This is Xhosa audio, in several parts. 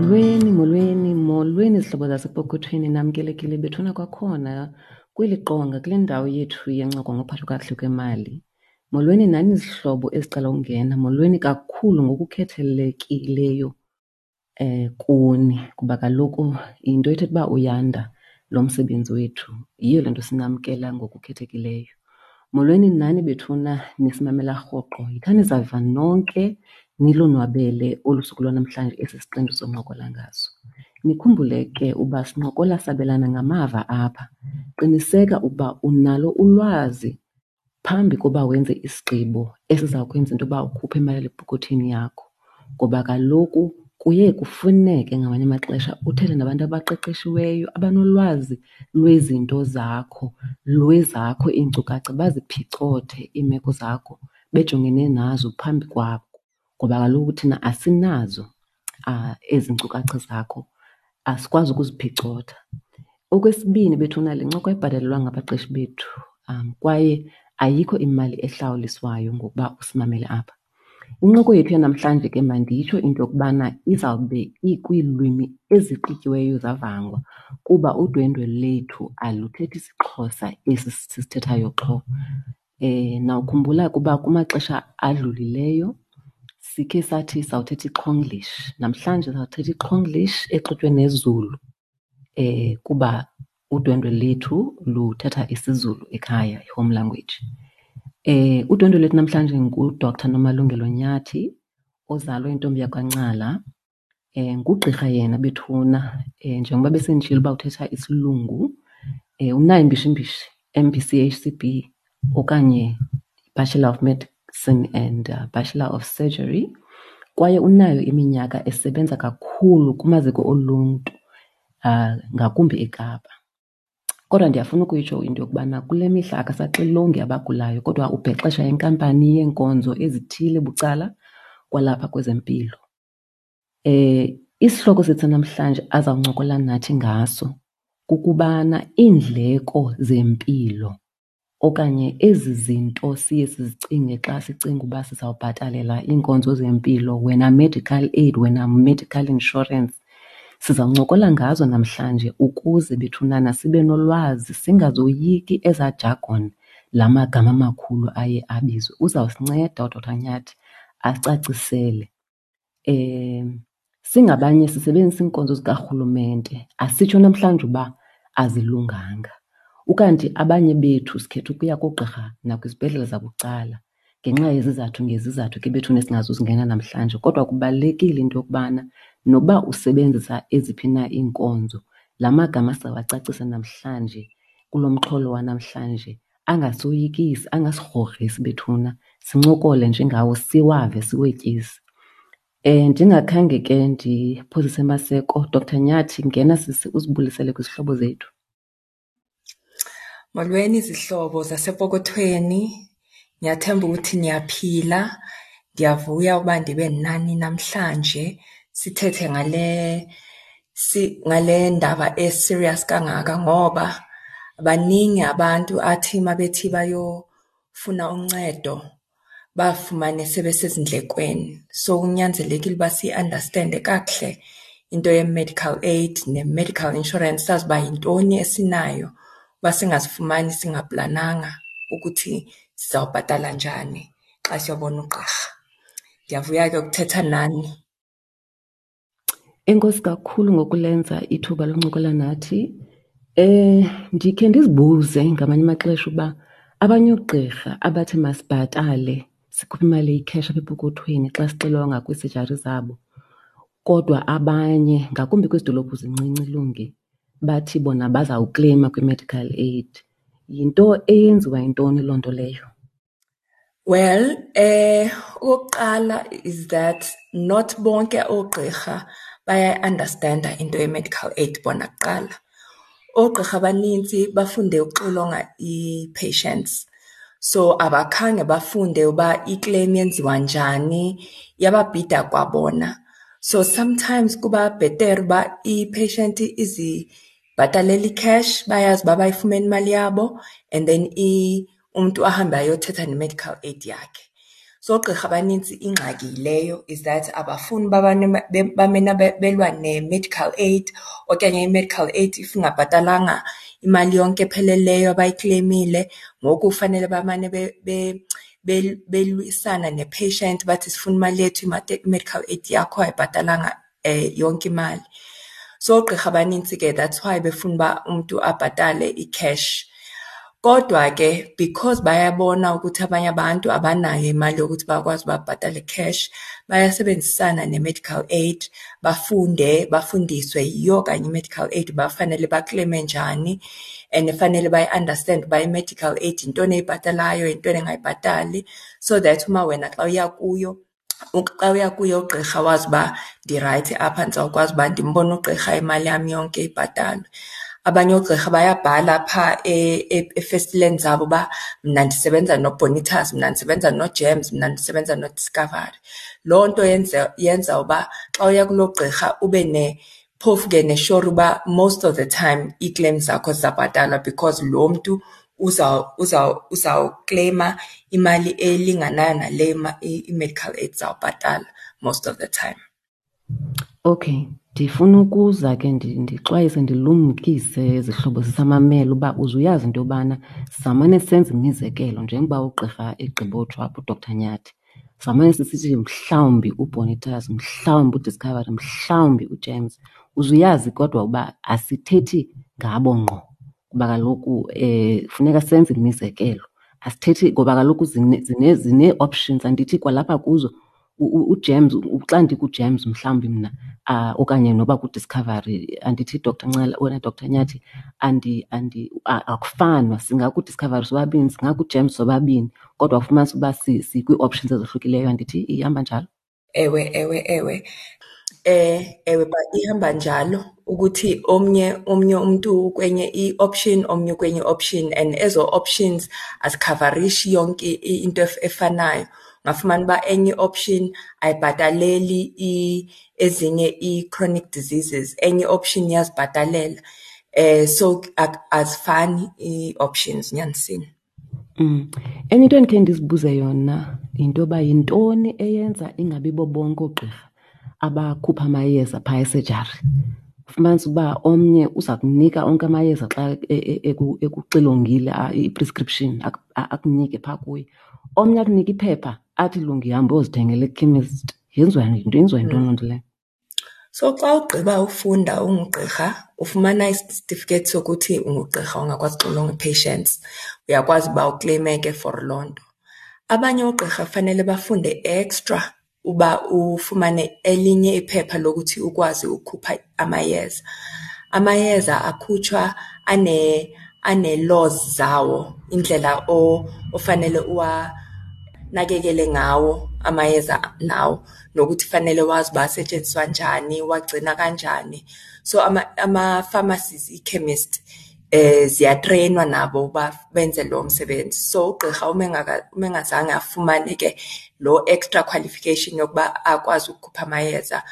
Molweni, molweni, molweni zihlobo zasepokothweni, namkelekile bethuna kwakhona kweli qonga kule ndawo yethu yencoko ngophatho kakuhle kwemali. Molweni nani zihlobo ezicela ungena, molweni kakhulu ngokukhethelekileyo kuni kuba kaloku yinto ethetha uba uyanda lo msebenzi wethu. Yiyo le nto sinamkela ngokukhethekileyo. Molweni nani bethuna nisimamela rhoqo. Yithani zava nonke nilonwabele olu suku lwanamhlanje esi siqendu soncokola ngaso. Nikhumbule ke uba sincokola sabelana ngamava apha. Qiniseka ukuba unalo ulwazi phambi koba wenze isigqibo esiza kwenza into yoba ukhuphe imali epokothweni yakho, ngoba kaloku kuye kufuneke ngamanye amaxesha uthethe nabantu abaqeqeshiweyo abanolwazi lwezinto zakho, lwezakho iinkcukacha, baziphicothe iimeko zakho bejongene nazo phambi kwakho, ngoba kaloku thina asinazo ezi nkcukacha zakho, asikwazi ukuziphicotha. Okwesibini bethuna, le ncoko ayibhatalelwanga ngabaqeshi bethu kwaye ayikho imali ehlawuliswayo ngokuba usimamele apha. Incoko yethu yanamhlanje ke manditsho into yokubana izawube ikwiilwimi ezixutyiweyo zavangwa kuba udwendwe lethu aluthethi isiXhosa esi sisithethayo qho. Nawukhumbula ukuba kumaxesha adlulileyo sikhe sathi sawuthetha iXhonglish. Namhlanje sawuthetha iXhonglish exutywe neZulu kuba udwendwe lethu luthetha isiZulu ekhaya, i-home language. Udwendwe lethu namhlanje nguDr Nomalungelo Nyathi ozalwa intombi yakwaNcala. Ngugqirha yena bethuna, njengoba besenditshilo uba uthetha isilungu, unayo imbishimbishi, MBCHCB okanye Bachelor of Medicine and Bachelor of Surgery, kwaye unayo iminyaka esebenza kakhulu kumaziko oluntu, ngakumbi eKapa. Kodwa ndiyafuna ukuyitsho into yokubana kule mihla akasaxilongi abagulayo kodwa ubhexesha inkampani yeenkonzo ezithile bucala kwalapha kwezempilo. Isihloko sethu namhlanje azawuncokola nathi ngaso kukubana iindleko zempilo okanye ezi zinto siye sizicinge xa sicinga uba sizawubhatalela iinkonzo zempilo, wena medical aid, wena medical insurance, sizawuncokola ngazo namhlanje ukuze bethunana sibe nolwazi, singazoyiki ezaa jargon, la magama amakhulu aye abizwe. Uzawusinceda uDr Nyathi acacisele. Singabanye sisebenzisa iinkonzo zikarhulumente, asitsho namhlanje uba azilunganga. Ukanti abanye bethu sikhetha ukuya koogqirha nakwizibhedlele zabucala ngenxa yezizathu ngezizathu ke bethuna esingazuzingena namhlanje. Kodwa kubalulekile into yokubana nokuba usebenzisa eziphi na iinkonzo, la magama sizawacacisa namhlanje kulo mxholo wanamhlanje angasoyikisi, angasigrogrisi bethuna, sincokole nje ngawo siwave siwetyise. Ndingakhange ke ndiphozise maseko, Dr Nyathi, ngena sisi uzibulisele kwizihlobo zethu. Molweni zihlobo zasepokothweni, ngiyathemba ukuthi niyaphila. Ndiyavuya uba ndibe nani namhlanje sithethe ngale ndaba e-serious kangaka, ngoba baningi abantu athi mabethi bayofuna uncedo bafumane sebesezindlekweni. So kunyanzelekile uba siyi-understand-e kakuhle into ye-medical aid ne-medical insurance, sazi uba yintoni esinayo, uba singazifumani singaplananga ukuthi sizawubhatala njani xa siyobona ugqirha. Ndiyavuya ke ukuthetha nani. Enkosi kakhulu ngokulenza ithuba loncokola nathi. Ndikhe ndizibuze ngamanye amaxesha uba abanye oogqirha abathi masibhatale sikhuphe imali eyi-cash apha epokothweni xa sixilonga kwiisejari zabo, kodwa abanye ngakumbi kwezi dolophu zincinci Lungi bathi bona bazawukleyima kwi-medical aid. Yinto eyenziwa yintoni loo nto leyo? Well, okokuqala is that not bonke oogqirha bayayi-understand-a into ye-medical aid bona kuqala. Oogqirha abanintsi bafunde ukuxilonga ii-patients, so abakhange bafunde uba i-claim yenziwa njani, iyababhida kwabona. So sometimes kuba bhetere uba i-patient izibhatalele i-cash, bayazi uba bayifumene imali yabo, and then umntu ahambe ayothetha ne-medical aid yakhe. So oogqirha abanintsi ingxaki yileyo, is that abafuni uba bamane belwa ne-medical aid okanye i-medical aid if ingabhatalanga imali yonke epheleleyo abayikleyimile, ngoku fanele bamane belwisana ne-patient bathi sifuna imali yethu, i-medical aid yakho ayibhatalanga yonke imali. So oogqirha abanintsi ke that's why befuna uba umntu abhatale i-cash. Kodwa ke because bayabona ukuthi abanye abantu abanayo imali yokuthi bakwazi uba babhatale cash, bayasebenzisana ne-medical aid bafunde, bafundiswe yiyo kanye i-medical aid uba fanele bakleyime njani and fanele bayi-andastende uba i-medical aid yintoni eyibhatalayo, yintoni engayibhatali, so that uma wena xa uya kuyo, xa uya kuye ugqirha wazi uba ndirayithi apha ndizawukwazi uba ndimbone ugqirha imali yam yonke ibhatalwe. Abanye oogqirha bayabhala phaa efestileni zabo uba mna ndisebenza noBonitas, mna ndisebenza noGems, mna ndisebenza noDiscovery. Loo nto yenza yenza uba xa uya kuloo gqirha ube phofu ke neshori uba most of the time ii-claims zakho zizawubhatalwa because lo mntu uzawukleyima imali elinganayo nale i-medical aid izawubhatala most of the time. Okay, ndifuna ukuza ke ndixwayise ndilumkise zihlobo zisamamela uba uze uyazi into yobana samane senza imizekelo njengoba ugqirha egqibotsho apha uDr Nyathi. Samane sisithi mhlawumbi uBonitas, mhlawumbi uDiscovery, mhlawumbi uJames. Uze uyazi kodwa uba asithethi ngabo ngqo kuba kaloku funeka senze imizekelo. Asithethi ngoba kaloku zinee-options, andithi kwalapha kuzo uJames, xa ndikuJames mhlawumbi mna okanye noba kuDiscovery, andithi Doctor Ncala wena Doctor Nyathi, akufanwa. SingakuDiscovery sobabini, singakuJames sobabini, kodwa ufumanise uba sikwii-options ezohlukileyo, andithi ihamba njalo? Ewe, ewe, ewe. Ewe, ihamba njalo ukuthi omnye omnye umntu kwenye i-option, omnye kwenye i-option, and ezo options azikhavarishi yonke into efanayo. Ungafumana uba enye i-option ayibhataleli ezinye ii-chronic diseases, enye i-option iyazibhatalela. So azifani ii-options nyanisini. Enye into endikhe ndizibuze yona yinto yoba yintoni eyenza ingabi bo bonke oogqirha abakhupha amayeza phaa esejari. Ufumanise uba omnye uza kunika onke amayeza xa ekuxilongile, i-prescription akunike phaa kuye. Omnye akunike iphepha athi lungi hamba uyozithengela ekhemesti. Yenziwa yintoni loo nto leyo? So xa ugqiba ufunda ungugqirha ufumana isitifiketi sokuthi ungugqirha ongakwazi uxilonga ii-patients, uyakwazi uba ukleyime ke for loo nto. Abanye oogqirha fanele bafunde extra uba ufumane elinye iphepha lokuthi ukwazi ukukhupha amayeza. Amayeza akhutshwa ane-laws zawo, indlela ofanele uwanakekele ngawo amayeza lawo, nokuthi fanele wazi uba asetyenziswa njani, uwagcina kanjani. So ama-pharmacies, ii-chemist ziyatreyinwa nabo uba benze lo msebenzi. So ugqirha uma engazange afumane ke loo extra qualification yokuba akwazi ukukhupha amayeza,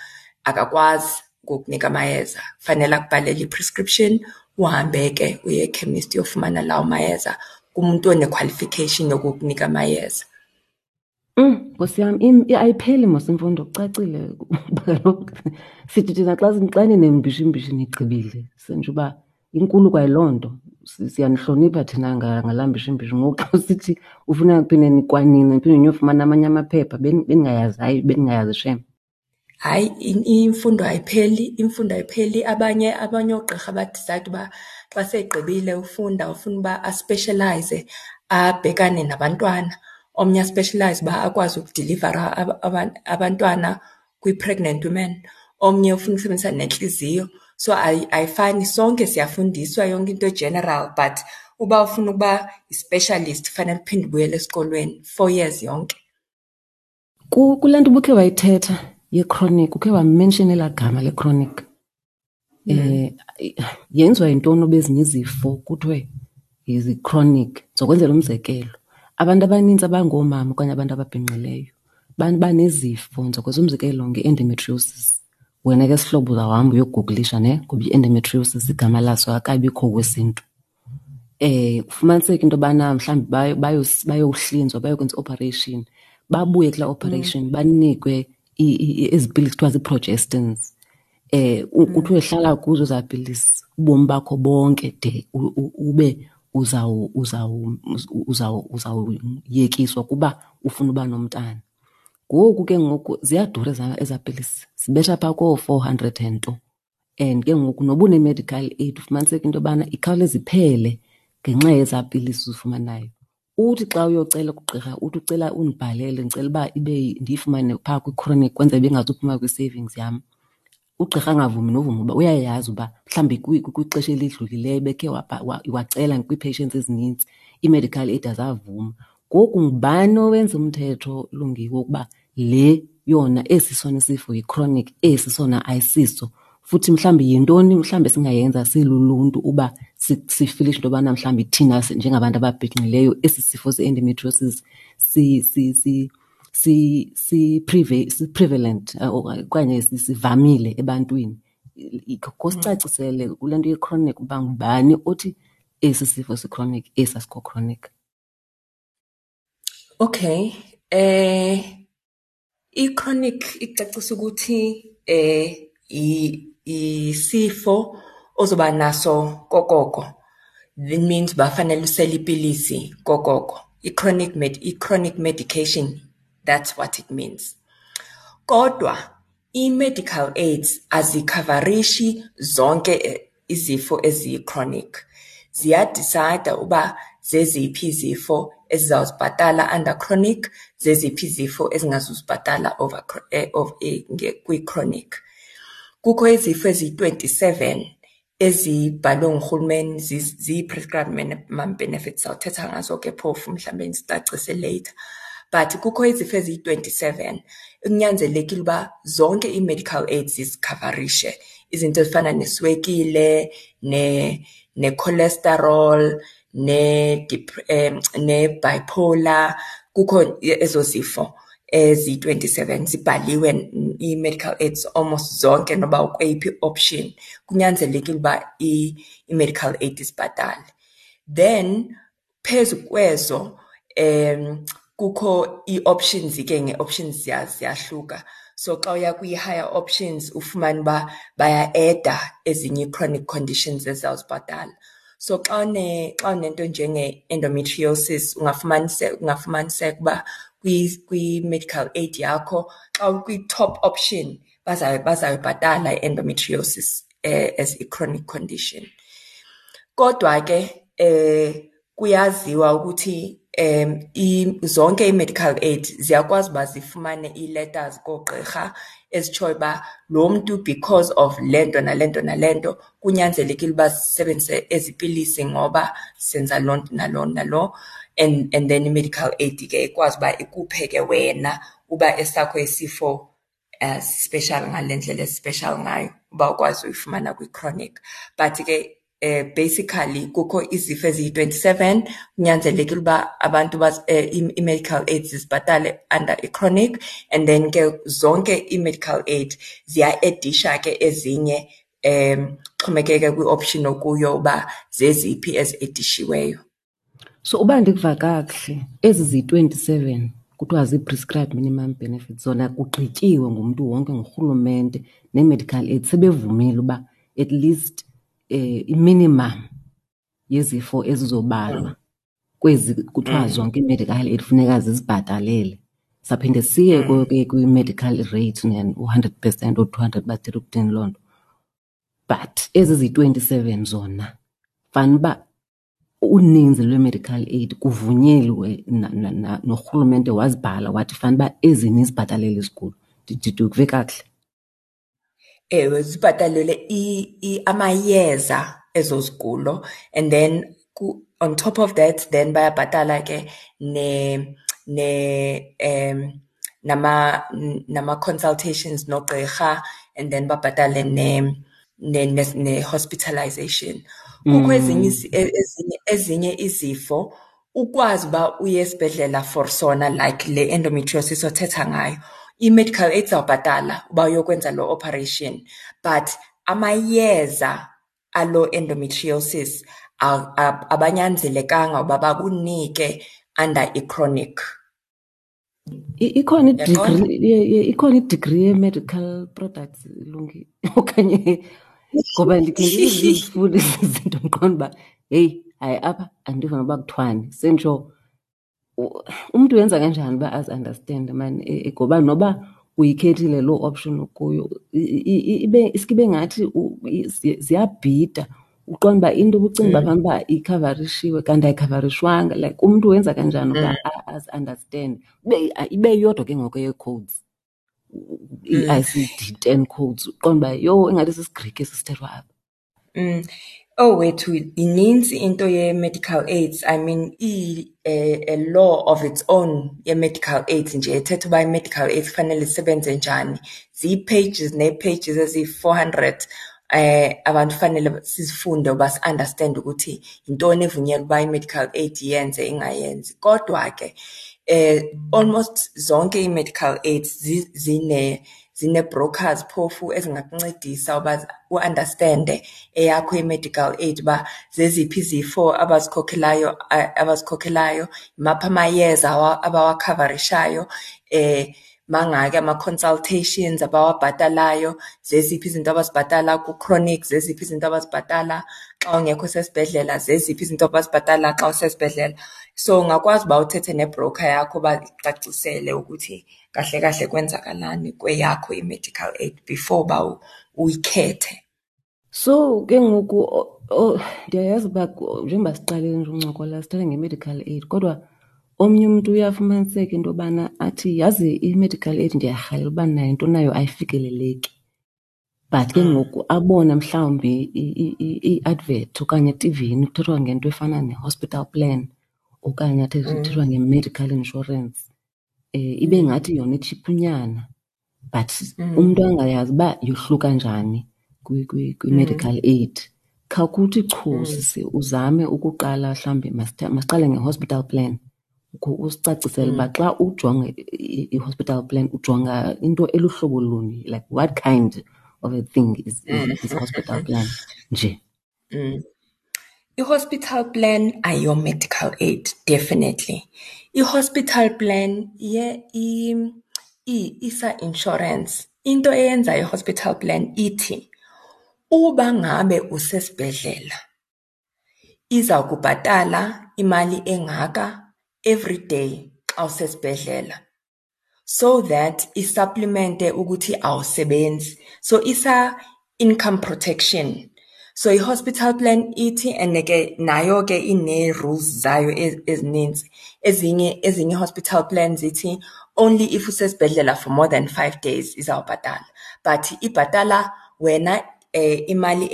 akakwazi ukukunika amayeza. Fanele akubhalele i-prescription, uhambe ke uye ekhemesti uyofumana lawo mayeza kumntu one-qualification yokukunika amayeza. Nkosi yam, ayipheli mos imfundo, kucacile. Kuba kaloku sithi thina xa xa ninembishimbishi nigqibile, senje uba inkulu kwayiloo nto. Siyanihlonipha thina ngalaa mbishimbishi. Ngoku xa usithi ufuna phinde kwanina niphinde niyofumana amanye amaphepha, bendingayazi, hayi bendingayazi shem. Hayi, imfundo ayipheli, imfundo ayipheli. Abanye abanye oogqirha badisayida uba xa segqibile ufunda ufuna uba aspeshelayize abhekane nabantwana. Omnye aspeshelayize uba akwazi ukudilivara abantwana kwi-pregnant women. Omnye ufuna ukusebenzisa nentliziyo. So ayifani, sonke siyafundiswa yonke into e-general, but uba ufuna ukuba yi-specialist fanele uphinde ubuyele esikolweni 4 years yonke. Kule nto ubukhe wayithetha ye-chronic, ukhe wamenshina elaa gama le-chronic. Yenziwa yintoni uba ezinye izifo kuthiwe zi-chronic? Ndizokwenzela umzekelo, abantu abanintsi abangoomama okanye abantu ababhinqileyo banezifo. Ndizokwenza umzekelo nge-endometriosis. Wena ke sihlobo uzawuhamba uyogugulisha ne, ngoba i-endometriosis igama laso akabikho kwesiNtu. Kufumaniseke into yobana mhlawumbi bayohlinzwa, bayokwenza i-operation, Babuye kulaa operation banikwe ezi pilisi kuthiwa zii-progestins. Kuthiwe hlala kuzo ezaa pilisi ubomi bakho bonke de ube uzawuyekiswa kuba ufuna uba nomntana. Ngoku ke ngoku ziyadura ezaa pilisi, zibetha phaa koo-400 and nto. And ke ngoku noba une-medical aid ufumaniseke into yobana ikhawuleza iphele ngenxa yezaa pilisi uzifumanayo. Uthi xa uyocela kugqirha uthi ucela undibhalele, ndicela uba ibe ndiyifumane phaa kwi-chronic kwenzela uba ingazuphuma kwi-savings yam. Ugqirha angavumi novuma uba uyayazi uba mhlawumbi kwixesha elidlulileyo bekhe wacela kwii-patients ezinintsi, ii-medical aid azavuma. Ngoku ngubani owenza umthetho, Lungiwe, wokuba le yona esi sona isifo yi-chronic, esi sona ayisiso? Futhi mhlawumbi yintoni mhlawumbi esingayenza siluluntu uba sifilishe into yobana mhlawumbi thina njengabantu ababhinqileyo esi sifo se-endometriosis si-prevalent okanye sivamile ebantwini? Khawusicacisele kule nto ye-chronic uba ngubani othi esi sifo si-chronic, esi asikho chronic. Okay, i-chronic icacisa ukuthi isifo ozoba naso kokoko. That means bafanele usele ipilisi kokoko. I-chronic medication, that's what it means. Kodwa i-medical aids azikhavarishi zonke izifo eziyi-chronic. Ziya-decide uba zeziphi izifo ezizawuzibhatala under chronic, zeziphi izifo ezingazuzibhatala over kwi-chronic. Kukho izifo eziyi-27 ezibhalwe ngurhulumeni ziyi-prescribed minimum benefits, sawuthetha ngazo ke phofu mhlawumbe ndicacise later. But kukho izifo eziyi-27 ekunyanzelekile uba zonke ii-medical aids zizikhavarishe. Izinto ezifana neswekile, ne-cholesterol, ne-bipolar, kukho ezo zifo eziyi-27 zibhaliwe ii-medical aids almost zonke noba ukweyiphi option, kunyanzelekile uba i-medical aid isibhatale. Then phezu kwezo kukho ii-options ke, ngee-options ziyahluka. So xa uya kwi-higher options ufumane uba baya-eda ezinye ii-chronic conditions ezizawuzibhatala. So xa unento njenge-endometriosis ungafumaniseka uba kwi-medical aid yakho xa ukwi-top option bazayibhatala i-endometriosis as i-chronic condition. Kodwa ke kuyaziwa ukuthi zonke ii-medical aid ziyakwazi uba zifumane ii-letters koogqirha ezitshoyo uba lo mntu because of le nto nale nto nale nto kunyanzelekile uba sisebenzise ezi pilisi ngoba senza loo nto nalo nalo, and then i-medical aid ke ikwazi uba ikuphe ke wena uba esakho isifo special ngale ndlela esi-special ngayo uba ukwazi uyifumana kwi-chronic. But ke basically kukho izifo eziyi-27 kunyanzelekile uba abantu i-medical aids zibhatale under i-chronic, and then ke zonke i-medical aid ziya-edisha ke ezinye, xhomekeke kwi-option okuyo uba zeziphi ezi-edishiweyo. So uba ndikuva kakuhle, ezi ziyi-27 kuthiwa zii-prescribed minimum benefits zona kugqityiwe ngumntu wonke, ngurhulumente nee-medical aid sebevumile uba at least i-minimum yezifo ezizobalwa kwezi kuthiwa zonke ii-medical aid funeka zizibhatalele. Saphinde siye ke kwi-medical rate u-100% or 200 bathile ukuthini loo nto. But ezi ziyi-27 zona fanuba uninzi lwe-medical aid kuvunyelwe norhulumente wazibhala wathi fanuba ezi nizibhatalele izigulo. Ndikuve kakuhle? Ewe, zibhatalele amayeza ezo zigulo, and then on top of that then bayabhatala ke ne ne um nama nama consultations nogqirha, and then babhatale ne hospitalization. Kukho ezinye ezinye izifo ukwazi uba uye esibhedlela for sona, like le endometriosis othetha ngayo, i-medical aid izawubhatala uba uyokwenza lo operation, but amayeza alo endometriosis abanyanzelekanga uba bakunike under i-chronic. Ikhona i-degree, ikhona i-degree ye-medical products, Lungi, okanye ngoba ndikhe ndizifunde ezi zinto ndiqonda uba heyi, hayi apha andiva noba kuthiwani. Senditsho umntu wenza kanjani uba azi-andastende maan ngoba noba uyikhethile loo option ukuyo ibe iske ibe ngathi ziyabhida. Uqonde uba into ubucinga uba fanuba ikhavarishiwe kanti ayikhavarishwanga. Like umntu wenza kanjani uba azi-andastende? Ibe iyodwa ke ngoku eyee-codes, ii-ICD-10 codes, uqonde uba yho ingathi sisiGrike esi sithethwa apha. Oh wethu, inintsi into ye-medical aids. I mean, a law of its own ye-medical aids nje ethetha uba i-medical aids kufanele isebenze njani. Zii-pages nee-pages eziyi-400 abantu fanele sizifunde uba si-understand ukuthi yintoni evunyelwa uba i-medical aid iyenze ingayenzi. Kodwa ke almost zonke ii-medical aids zine-brokers phofu ezingakuncedisa uba u-understande eyakho i-medical aid, uba zeziphi izifo abazikhokhelayo, yimaphi amayeza abawakhavarishayo, mangaki ama-consultations abawabhatalayo, zeziphi izinto abazibhatala ku-chronic, zeziphi izinto abazibhatala xa ungekho sesibhedlela, zeziphi izinto abazibhatala xa usesibhedlela. So ungakwazi uba uthethe ne-broker yakho uba ikucacisele ukuthi kahle kahle kwenzakalani kweyakho i-medical aid before uba uyikhethe. So ke ngoku ndiyayazi uba njengoba siqalile nje uncokola sithetha nge-medical aid, kodwa omnye umntu uyafumaniseka into yobana athi yazi i-medical aid ndiyarhalela uba nayo, into nayo ayifikeleleki. But ke ngoku abone mhlawumbi i-advert okanye etivini kuthethwa ngento efana ne-hospital plan okanye kuthethwa nge-medical insurance, ibe ngathi yona itshiphunyana, but umntu angayazi uba yohluka njani kwi-medical aid. Khawukuthi chu sisi, uzame ukuqala mhlawumbi masiqale nge-hospital plan. Usicacisele uba xa ujonga i-hospital plan ujonga into eluhlobo luni, like what kind of a thing is hospital plan nje? I-hospital plan ayiyo-medical aid, definitely. I-hospital plan isa-insurance. Into eyenza i-hospital plan ithi uba ngabe usesibhedlela iza kubhatala imali engaka every day xa usesibhedlela, so that i-supplemente ukuthi awusebenzi. So isa income protection. So i-hospital plan ithi, and ke nayo ke ine-rules zayo ezininzi. Ezinye hospital plans ithi only if usesibhedlela for more than 5 days izawubhatala. But ibhatala wena imali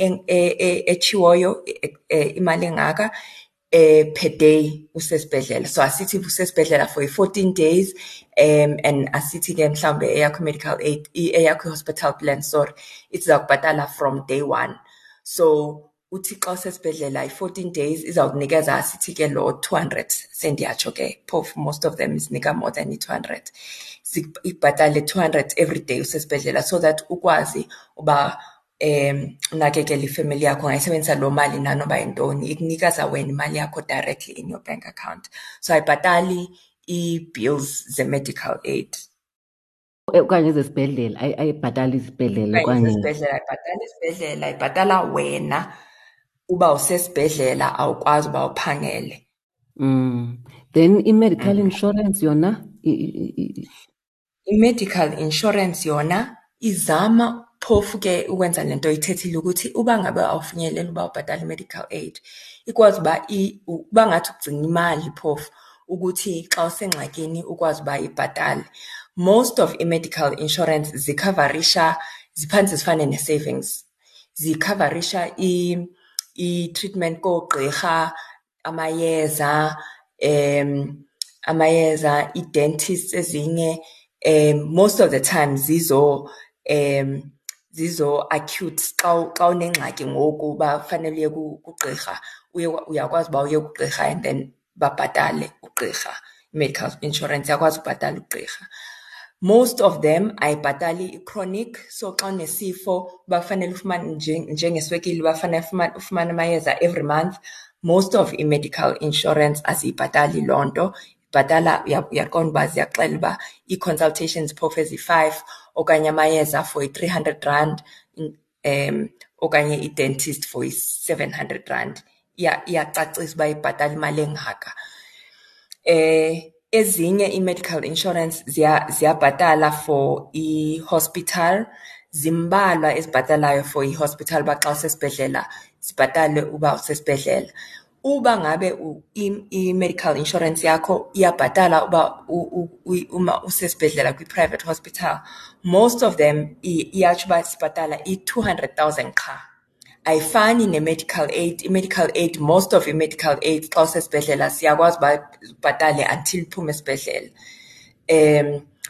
etshiwoyo, imali engaka per day usesibhedlela. So asithi usesibhedlela for 14 days, and asithi ke mhlawumbe eyakho medical aid, eyakho hospital plan, sorry, izawubhatala from day 1. So uthi xa usesibhedlela i-14 days izawukunikeza asithi ke lo 200, sendiyatsho ke phofu most of them isinika more than i-200. Ibhatale 200 every day usesibhedlela so that ukwazi uba unakekele ifamily yakho, ungayisebenzisa loo mali nanoba yintoni, ikunikeza wena imali yakho directly in your bank account. So ayibhatali ii-bills ze-medical aid. Okanye ezesibhedlela, ayibhatali izibhedlela okanye ezesibhedlela, ayibhatali isibhedlela, ibhatala wena uba usesibhedlela awukwazi uba uphangele. Then i-medical insurance yona? I-medical insurance yona izama phofu ke ukwenza le nto ithethile ukuthi uba ngabe awufinyeleli uba ubhatale i-medical aid, ikwazi uba uba ngathi ugcina imali phofu ukuthi xa usengxakini ukwazi uba ibhatale. Most of i-medical insurance zikhavarisha, ziphantse zifane ne-savings. Zikhavarisha i-treatment koogqirha, amayeza, i-dentists ezinye, most of the time zizo acute. Xa unengxaki ngoku uba fanele uye kugqirha, uyakwazi uba uye kugqirha and then babhatale ugqirha. I-medical insurance iyakwazi ubhatala ugqirha. Most of them ayibhatali i-chronic, so xa unesifo uba fanele ufumane njengeswekile, uba fanele ufumane amayeza every month, most of i-medical insurance aziyibhatali loo nto. Ibhatala, uyaqonda uba ziyakuxelela uba ii-consultations phofu ezi-five okanye amayeza for i-R300, okanye i-dentist for i-R700. Iyacacisa uba ibhatala imali engaka. Ezinye ii-medical insurance ziyabhatala for i-hospital. Zimbalwa ezibhatalayo for i-hospital, uba xa usesibhedlela zibhatale uba usesibhedlela. Uba ngabe i-medical insurance yakho iyabhatala uba uma usesibhedlela kwi-private hospital, most of them iyatsho uba sibhatala i-200,000 qha. Ayifani ne-medical aid. I-medical aid, most of i-medical aid xa usesibhedlela siyakwazi uba ubhatale until uphume esibhedlela.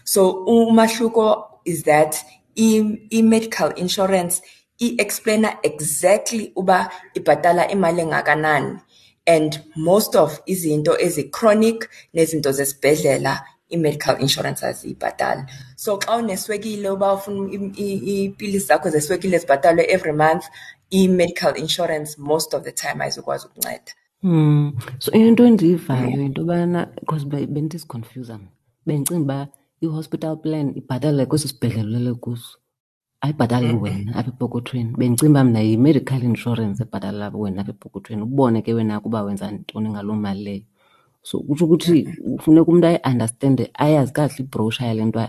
So umahluko is that i-medical insurance i-explaina exactly uba ibhatala imali engakanani, and most of izinto ezi-chronic nezinto zesibhedlela i-medical insurance aziyibhatali. So xa uneswekile, uba ufuna iipilisi zakho zeswekile zibhatalwe every month, i-medical insurance most of the time ayizukwazi ukunceda. So into endiyivayo yinto yobana, because bendizikhonfyuza mna, bendicinga uba i-hospital plan ibhatala kwesi sibhedlele ulele kuso, ayibhatali wena apha epokothweni. Bendicinga uba mna yi-medical insurance ebhatala wena apha epokothweni, ubone ke wena ukuba wenza ntoni ngaloo mali leyo. So kutsho ukuthi funeka umntu ayi-understande, ayazi kakuhle ibrowusha yale nto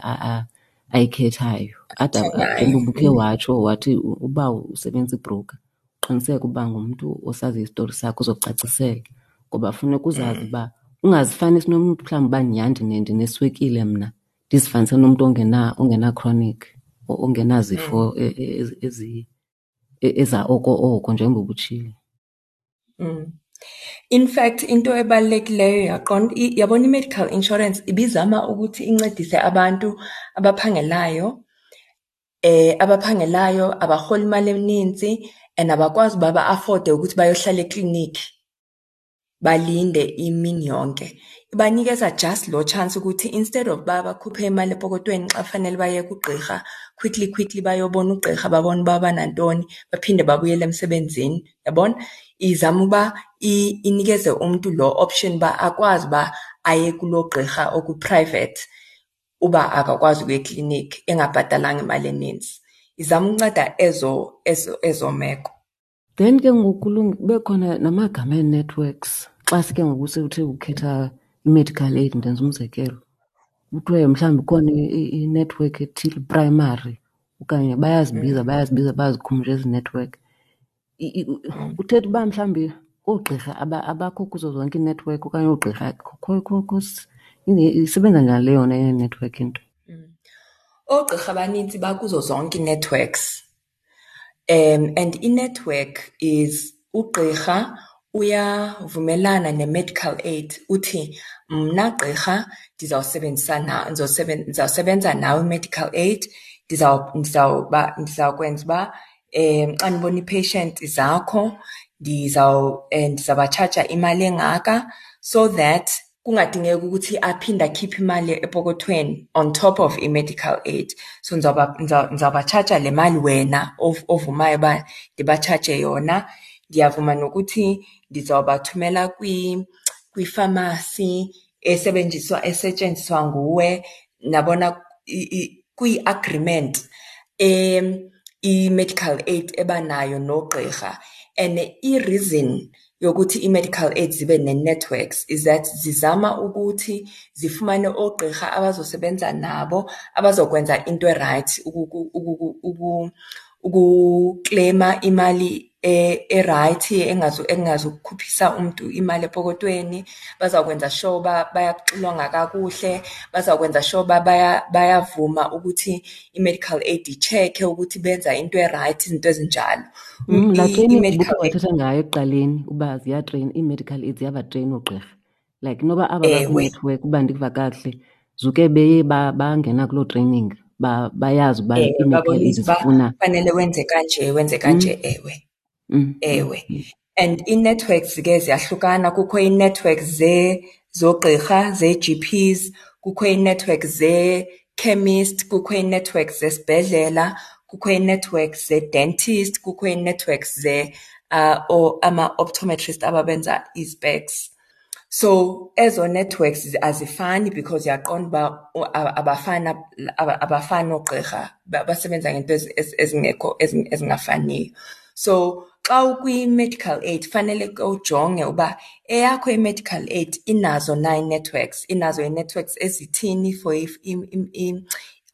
ayikhethayo. Ade njengoba ubukhe watsho wathi uba usebenzisa ibroker, uqiniseke uba ngumntu osaziyo isitori sakho ozokucacisela, ngoba funeka uzazi uba ungazifanisi nomntu mhlawumbi uba nyhani ndineswekile mna, ndizifanise nomntu ongena-chronic, ongenazifo eza oko oko njengoba ubutshilo. In fact, into ebalulekileyo yaqonda, yabona i-medical insurance ibizama ukuthi incedise abantu abaphangelayo, abaphangelayo abarhola imali eninzi and abakwazi uba ba-afforde ukuthi bayohlala ekliniki balinde imini yonke. Ibanikeza just lo chance ukuthi instead of uba bakhuphe imali epokotweni xa kufanele baye kugqirha, quickly quickly bayobona ugqirha, babone uba banantoni, baphinde babuyele emsebenzini. Yabona? Izama uba inikeze umntu lo option uba akwazi uba aye kuloo gqirha oku-private uba akakwazi ukuya ekliniki engabhatalanga imali eninzi. Izama ukunceda ezo meko. Then ke ngoku kube khona namagama ee-networks. Xa sike ngoku sewuthe ukhetha i-medical aid, ndenza umzekelo, kuthiwe mhlawumbi ikhona i-network ethile, primary, okanye bayazibiza, bayazibiza, bayazikhumsha ezi network. Kuthetha uba mhlawumbi oogqirha abakho kuzo zonke iinetwork okanye oogqirha, isebenza njani le yona ye-network into? Oogqirha abanintsi bakuzo zonke ii-networks. And i-network is ugqirha uyavumelana ne-medical aid, uthi mna gqirha ndizawusebenzisana, ndizawusebenza nawe medical aid, ndizawukwenza uba xa ndibona ii-patient zakho ndizawubatshaja imali engaka, so that kungadingeki ukuthi aphinde akhiphe imali epokothweni on top of i-medical aid. So ndizawubatshaja le mali wena ovumayo uba ndibatshaje yona. Ndiyavuma nokuthi ndizawubathumela kwifamasi esetshenziswa nguwe. Nabona kwi-agreement i-medical aid ebanayo nogqirha. And i-reason yokuthi i-medical aid zibe ne-networks is that zizama ukuthi zifumane oogqirha abazosebenza nabo, abazokwenza into e-right, ukukleyima imali e-right, engazukukhuphisa umntu imali epokotweni. Bazawukwenza sure uba bayakuxilonga kakuhle, bazawukwenza sure uba bayavuma ukuthi i-medical aid i-check-e ukuthi benza into e-right, izinto ezinjalo. Laa training ubukhe wathetha ngayo ekuqaleni uba ziyatreyina, ii-medical aid ziyabatreyina oogqirha. Like noba aba baku-network, uba ndiva kakuhle, zuke beye bangena kuloo training, bayazi uba ii-medical aid Babonisa uba zifuna fanele wenze kanje, wenze kanje, ewe. Ewe. And ii-networks ke ziyahlukana, kukho ii-networks zoogqirha, zee-G Ps, kukho ii-network zee-chemist, kukho ii-network zesibhedlela, kukho ii-networks zee-dentist, kukho ii-networks ama-optometrist ababenza ii-specs. So ezo networks azifani because uyaqonda uba abafani, abafani oogqirha, basebenza ngeento ezingekho, ezingafaniyo. So xa ukwi-medical aid fanele ke ujonge uba eyakho i-medical aid inazo na ii-networks, inazo ii-networks ezithini for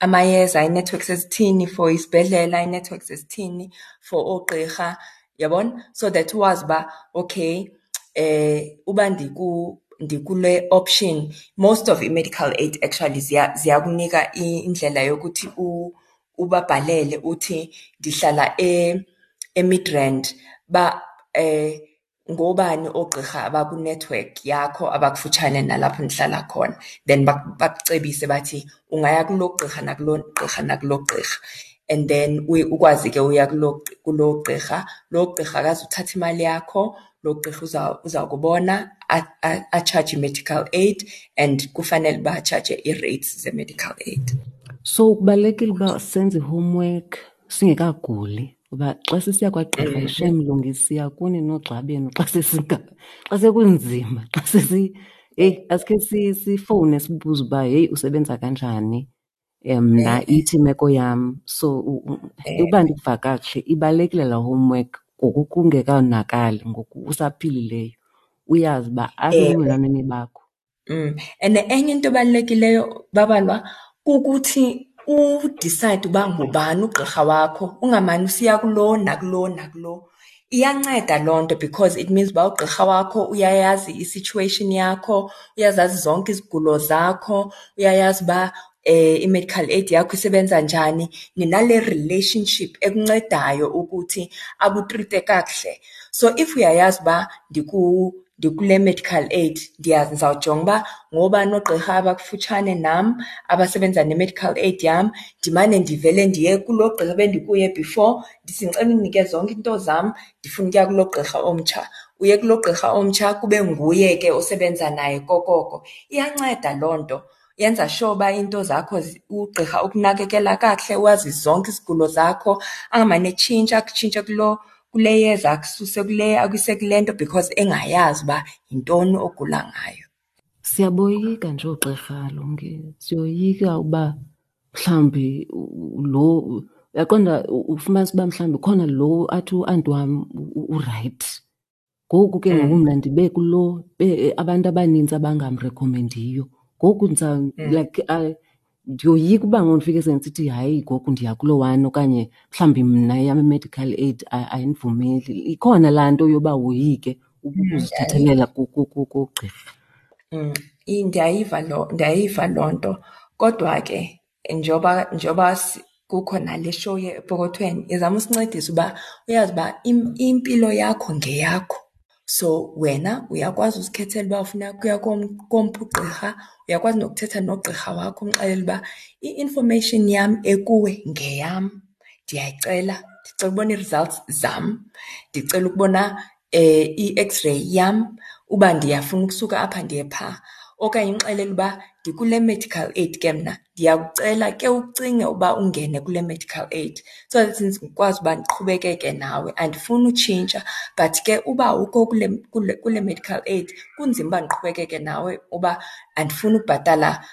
amayeza, ii-networks ezithini for isibhedlela, ii-networks ezithini for oogqirha, uyabona? So that wazi uba okay, uba ndikule option, most of i-medical aid actually ziyakunika indlela yokuthi ubabhalele uthi ndihlala eMidrand, uba ngoobani oogqirha abakwinethiwekhi yakho abakufutshane nalapho ndihlala khona. Then bakucebise bathi ungaya kulo gqirha nakulo gqirha nakulo gqirha. And then ukwazi ke uya kulo gqirha. Lo gqirha akazuthatha imali yakho, lo gqirha uza kubona atshaje i-medical aid, and kufanele uba atshaje ii-rates ze-medical aid. So kubalulekile uba senze i-homework singekaguli, uba xa sisiya kwagqirha, shem Mlungisi, siya kuni noogxa benu xa xa sekunzima, xa sesi, heyi, asikhe sifowune sibuze uba heyi usebenza kanjani, mna ithi imeko yam. So uba ndikuva kakuhle, ibalulekile laa homework ngoku kungekonakali, ngoku usaphilileyo, uyazi uba asebulungelwaneni bakho. And enye into ebalulekileyo, Babalwa, kukuthi udicide uba ngubani ugqirha wakho, ungamane usiya kulo nakulo nakulo. Iyanceda loo nto because it means uba ugqirha wakho uyayazi i-situation yakho, uyazazi zonke izigulo zakho, uyayazi uba i-medical aid yakho isebenza njani. Ninale relationship ekuncedayo ukuthi akutrite kakuhle. So if uyayazi uba ndikule medical aid, ndizawujonga uba ngoobani oogqirha abakufutshane nam abasebenza ne-medical aid yam, ndimane ndivele ndiye kuloo gqirha bendikuye before, ndithi ndicela undinike zonke iinto zam, ndifuna ukuya kuloo gqirha omtsha. Uye kuloo gqirha omtsha kube nguye ke osebenza naye kokoko. Iyanceda loo nto, yenza sure uba iinto zakho ugqirha ukunakekela kakuhle, wazi zonke izigulo zakho, angamane etshintsha, akutshintshe kule yeza, akususe kule, akuyise kule nto because engayazi uba yintoni ogula ngayo. Siyaboyika nje oogqirha, Lungi. Siyoyika uba mhlawumbi lo, uyaqonda, ufumanisa uba mhlawumbi khona lo athi uanti wam urayithi. Ngoku ke ngoku mna ndibe kulo, abantu abanintsi abangamrekhomendiyo. Ngoku like, ndiyoyika uba ngoku ndifike sendisithi hayi ngoku ndiya kulo one, okanye mhlawumbi mna eyam i-medical aid ayindivumeli. Ikhona laa nto yoba woyike ukuzithethelela kugqirha. Ndiyayiva loo nto. Kodwa ke njengoba kukho nale show yepokothweni, izama usincedisa uba uyazi uba impilo yakho ngeyakho. So wena uyakwazi uzikhethela uba ufuna ukuya komphi ugqirha, uyakwazi nokuthetha nogqirha wakho umxelele uba i-information yam ekuwe ngeyam, ndiyayicela, ndicela ukubona ii-results zam, ndicela ukubona i-x-ray yam uba ndiyafuna ukusuka apha ndiye phaa. Okanye umxelele uba ndikule medical aid ke mna, ndiyakucela ke ucinge uba ungene kule medical aid so that ndikwazi uba ndiqhubekeke nawe. Andifuni utshintsha, but ke uba awukho kule medical aid kunzima uba ndiqhubekeke nawe uba andifuni ukubhatala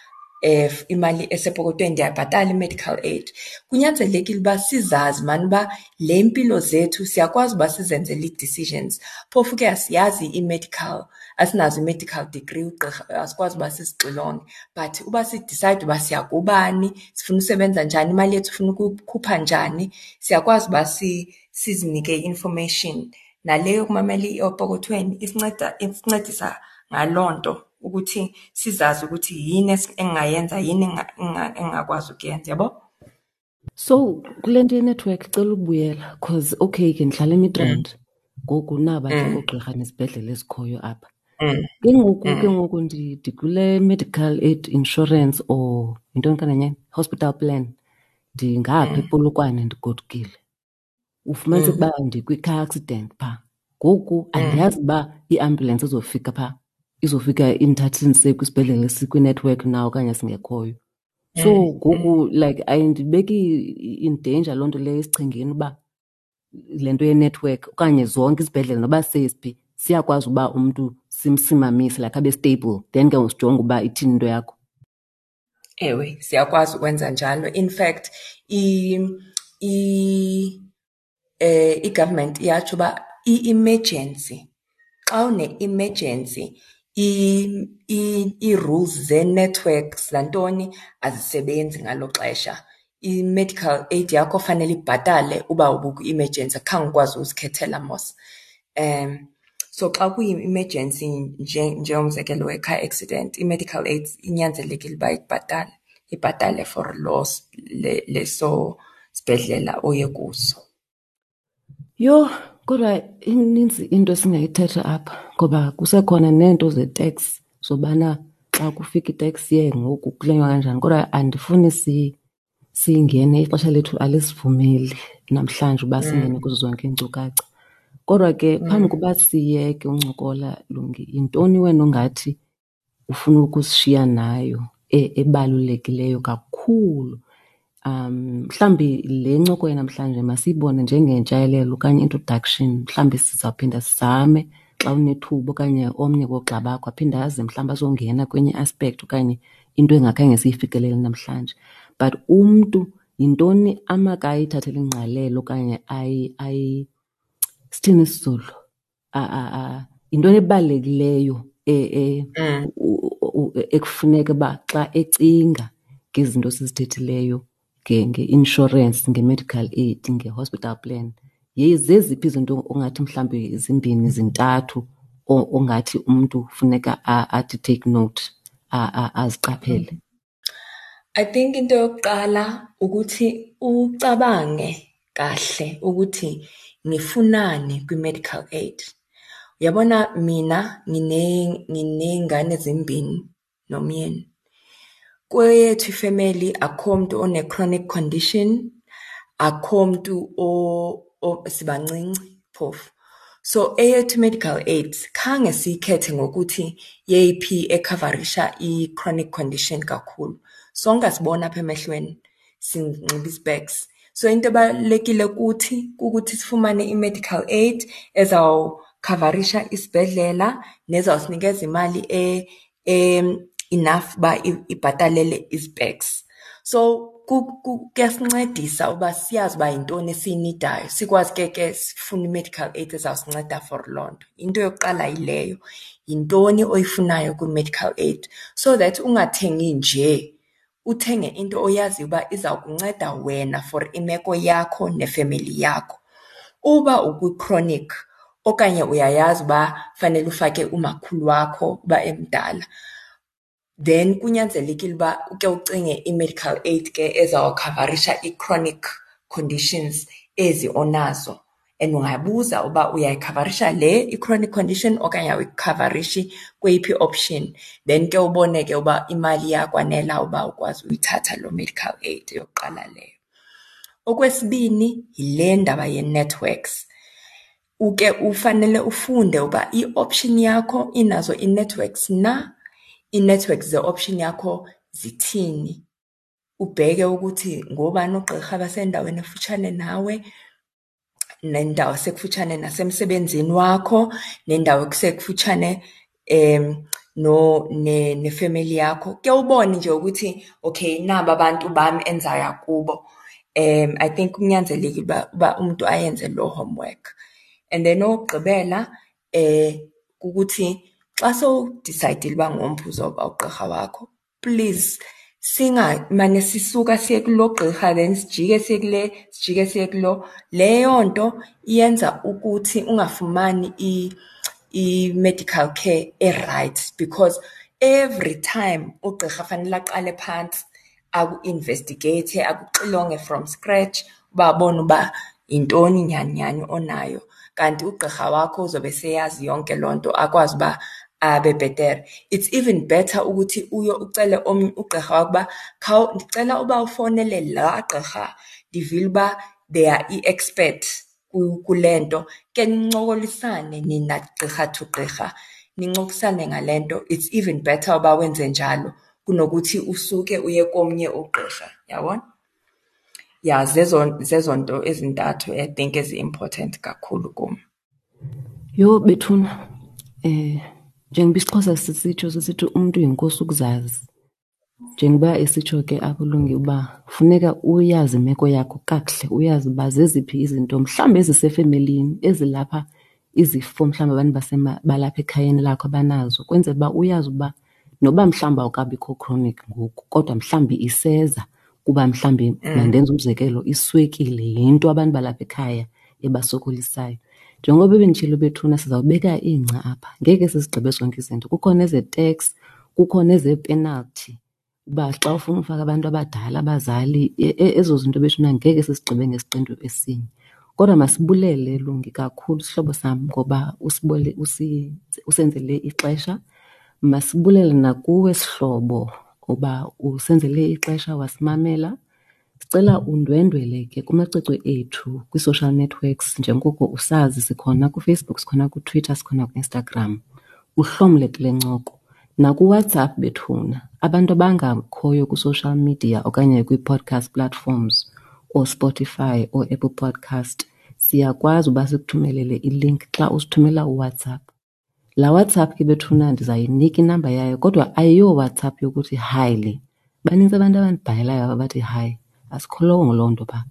imali esepokothweni, ndiyayibhatala i-medical aid. Kunyanzelekile uba sizazi maan uba le mpilo zethu siyakwazi uba sizenzele ii-decisions. Phofu ke asiyazi i-medical, asinazo i-medical degree, ugqirha asikwazi uba sizixilonge. But uba sidicide uba siya kubani, sifuna usebenza njani, imali yethu sifuna ukuyikhupha njani, siyakwazi uba sizinike i-information. Nale yokumamela epokothweni isincedisa ngaloo nto, ukuthi sizazi ukuthi yini engingayenza, yini engingakwazi ukuyenza, yabo? So kule nto yenethiwekhi cela ukubuyela, cause okay ke ndihlala eMidrand, ngoku naba ke oogqirha nezibhedlele ezikhoyo apha. Ke ngoku, ke ngoku ndikule medical aid insurance or yintoni kananyana, hospital plan, ndingapha ePolokwane ndigodukile. Ufumanise uba ndikwi-car accident phaa. Ngoku andiyazi uba iambulance izofika phaa, izofika indithathe indise kwisibhedlele esikwinethiwekhi na okanye singekhoyo. So ngoku like ayindibeki in danger loo nto leyo esichengeni uba le nto yenethiwekhi okanye zonke izibhedlele noba sesiphi siyakwazi uba umntu Simsimamise like abe stable, then ke ngoku sijonge uba ithini into yakho. Ewe, siyakwazi ukwenza njalo. In fact, i-government iyatsho uba i-emergency, xa une-emergency ii-rules zee-networks zantoni azisebenzi ngalo xesha. I-medical aid yakho fanele ibhatale uba ubukwi-emergency, khange ukwazi uzikhethela mos. So xa kuyi-emergency njengomzekelo we-car accident, i-medical aid inyanzelekile uba ikubhatale, ibhatale for loo leso sibhedlela oye kuso. Yho, kodwa ininzi into esingayithetha apha ngoba kusekhona neento ze-tax zobana xa kufika i-tax year ngoku kulenywa kanjani. Kodwa andifuni singene, ixesha lethu alisivumeli namhlanje uba singene kuzo zonke iinkcukacha. Kodwa ke phambi koba siyeke uncokola, Lungi, yintoni wena ongathi ufuna ukusishiya nayo ebalulekileyo kakhulu? Mhlawumbi le ncoko yanamhlanje masiyibone njengentshayelelo okanye introduction. Mhlawumbi sizawuphinda sizame xa unethuba okanye omnye woogxa bakho aphinde aze mhlawumbi azongena kwenye i-aspect okanye into engakhange siyifikelele namhlanje. But umntu yintoni amakayithathele ingqalelo okanye sithini isiZulu? Yintoni ebalulekileyo ekufuneka uba xa ecinga ngezinto esizithethileyo nge-inshorensi, nge-medical aid, nge-hospital plan, zeziphi izinto ongathi mhlawumbi zimbini, zintathu ongathi umntu funeka athi take note, aziqaphele? I think into yokuqala ukuthi ucabange kahle ukuthi ngifunani kwi-medical aid. Uyabona, mina nginey'ngane ezimbini nomyeni. Kweyethu ifemeli akukho muntu one-chronic condition, akukho muntu, sibancinci phofu. So eyethu medical aid khange siyikhethe ngokuthi yeyiphi ekhavarisha i-chronic condition kakhulu. Sonke asibona apha emehlweni, sinxiba i-specs. So into ebalulekile kuthi kukuthi sifumane i-medical aid ezawukhavarisha isibhedlela nezawusinikeza imali enough uba ibhatalele i-specs. So kuyasincedisa uba siyazi uba yintoni esiyinidayo, sikwazi ke sifune i-medical aid ezawusinceda for loo nto. Into yokuqala yileyo, yintoni oyifunayo kwi-medical aid so that ungathengi nje, uthenge into oyaziyo uba iza kunceda wena for imeko yakho nefemeli yakho. Uba ukwi-chronic okanye uyayazi uba fanele ufake umakhulu wakho uba emdala, then kunyanzelekile uba uke ucinge i-medical aid ke ezawukhavarisha i-chronic conditions ezi onazo. And ungabuza uba uyayikhavarisha le i-chronic condition okanye awuyikhavarishi, kweyiphi i-option. Then ke ubone ke uba imali iyakwanela uba ukwazi uyithatha loo medical aid, eyokuqala leyo. Okwesibini, yile ndaba yee-networks. Uke ufanele ufunde uba i-option yakho inazo ii-networks na, ii-networks ze-option yakho zithini. Ubheke ukuthi ngoobani oogqirha abasendaweni ekufutshane nawe, nendawo esekufutshane nasemsebenzini wakho, nendawo ekusekufutshane nefemeli yakho. Ke ubone nje ukuthi okay, naba abantu bam endizaya kubo. I think kunyanzelekile uba umntu ayenze loo homework. And then okokugqibela kukuthi xa sowudisayidile uba ngomphi uzawuba ugqirha wakho, please singamane sisuka siye kulo gqirha then sijike siye kule, sijike siye kulo. Leyo nto iyenza ukuthi ungafumani i-medical care e-right because every time ugqirha fanele aqale phantsi aku-investigate, akuxilonge from scratch uba abone uba yintoni nyhani nyhani onayo. Kanti ugqirha wakho uzobe seyazi yonke loo nto, akwazi uba abe bhetere. It's even better ukuthi uye ucele omnye ugqirha wakho uba ndicela uba ufowunele laa gqirha, ndivile uba they are i-expert kule nto. Ke nincokolisane nina gqirha to gqirha, nincokolisane ngale nto. It's even better uba wenze njalo kunokuthi usuke uye komnye ugqirha, uyabona? Ya, zezo nto ezintathu I think ezi-important kakhulu kum. Yho bethuna, Njengoba isiXhosa sisitsho sisithi umntu yinkosi ukuzazi. Njengoba esitsho ke apho Lungi uba funeka uyazi imeko yakho kakuhle, uyazi uba zeziphi izinto mhlawumbi ezisefemelini ezilapha izifo mhlawumbi abantu balapha ekhayeni lakho abanazo, kwenzela uba uyazi uba noba mhlawumbi awukabikho chronic ngoku kodwa mhlawumbi iseza kuba mhlawumbi mandenze umzekelo iswekile yinto abantu balapha ekhaya ebasokolisayo. Njengoba benditshilo bethuna sizawubeka ingca apha, ngeke sizigqibe zonke izinto. Kukho nezee-tax, kukho nezee-penalty uba xa ufuna ufaka abantu abadala, abazali, ezo zinto bethuna ngeke sizigqibe ngesiqendu esinye. Kodwa masibulele Lungi kakhulu sihlobo sam ngoba usenzele ixesha. Masibulele nakuwe sihlobo ngoba usenzele ixesha wasimamela. Sicela undwendwele ke kumacwecwe ethu kwii-social networks njengoko usazi sikhona kuFacebook, sikhona kuTwitter, sikhona kuInstagram. Uhlomle kule ncoko. NakuWhatsApp bethuna, abantu abangakhoyo kwi-social media okanye kwii-podcast platforms ooSpotify, ooApple Podcast, siyakwazi uba sikuthumelele i-link xa usithumela uWhatsApp. Laa WhatsApp ke bethuna ndizayinika inamba yayo kodwa ayiyoWhatsApp yokuthi hi le. Banintsi abantu abandibhalelayo apha bathi hi. Asikholongo loo nto phaa.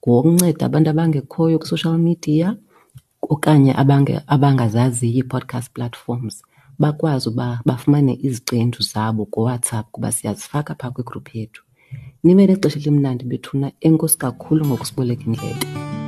Ngowokunceda abantu abangekhoyo kwi-social media okanye abangazaziyo ii-podcast platforms bakwazi uba bafumane iziqendu zabo kuWhatsApp kuba siyazifaka phaa kwigruphu yethu. Nibe nexesha elimnandi bethuna. Enkosi kakhulu ngokusiboleka indlebe.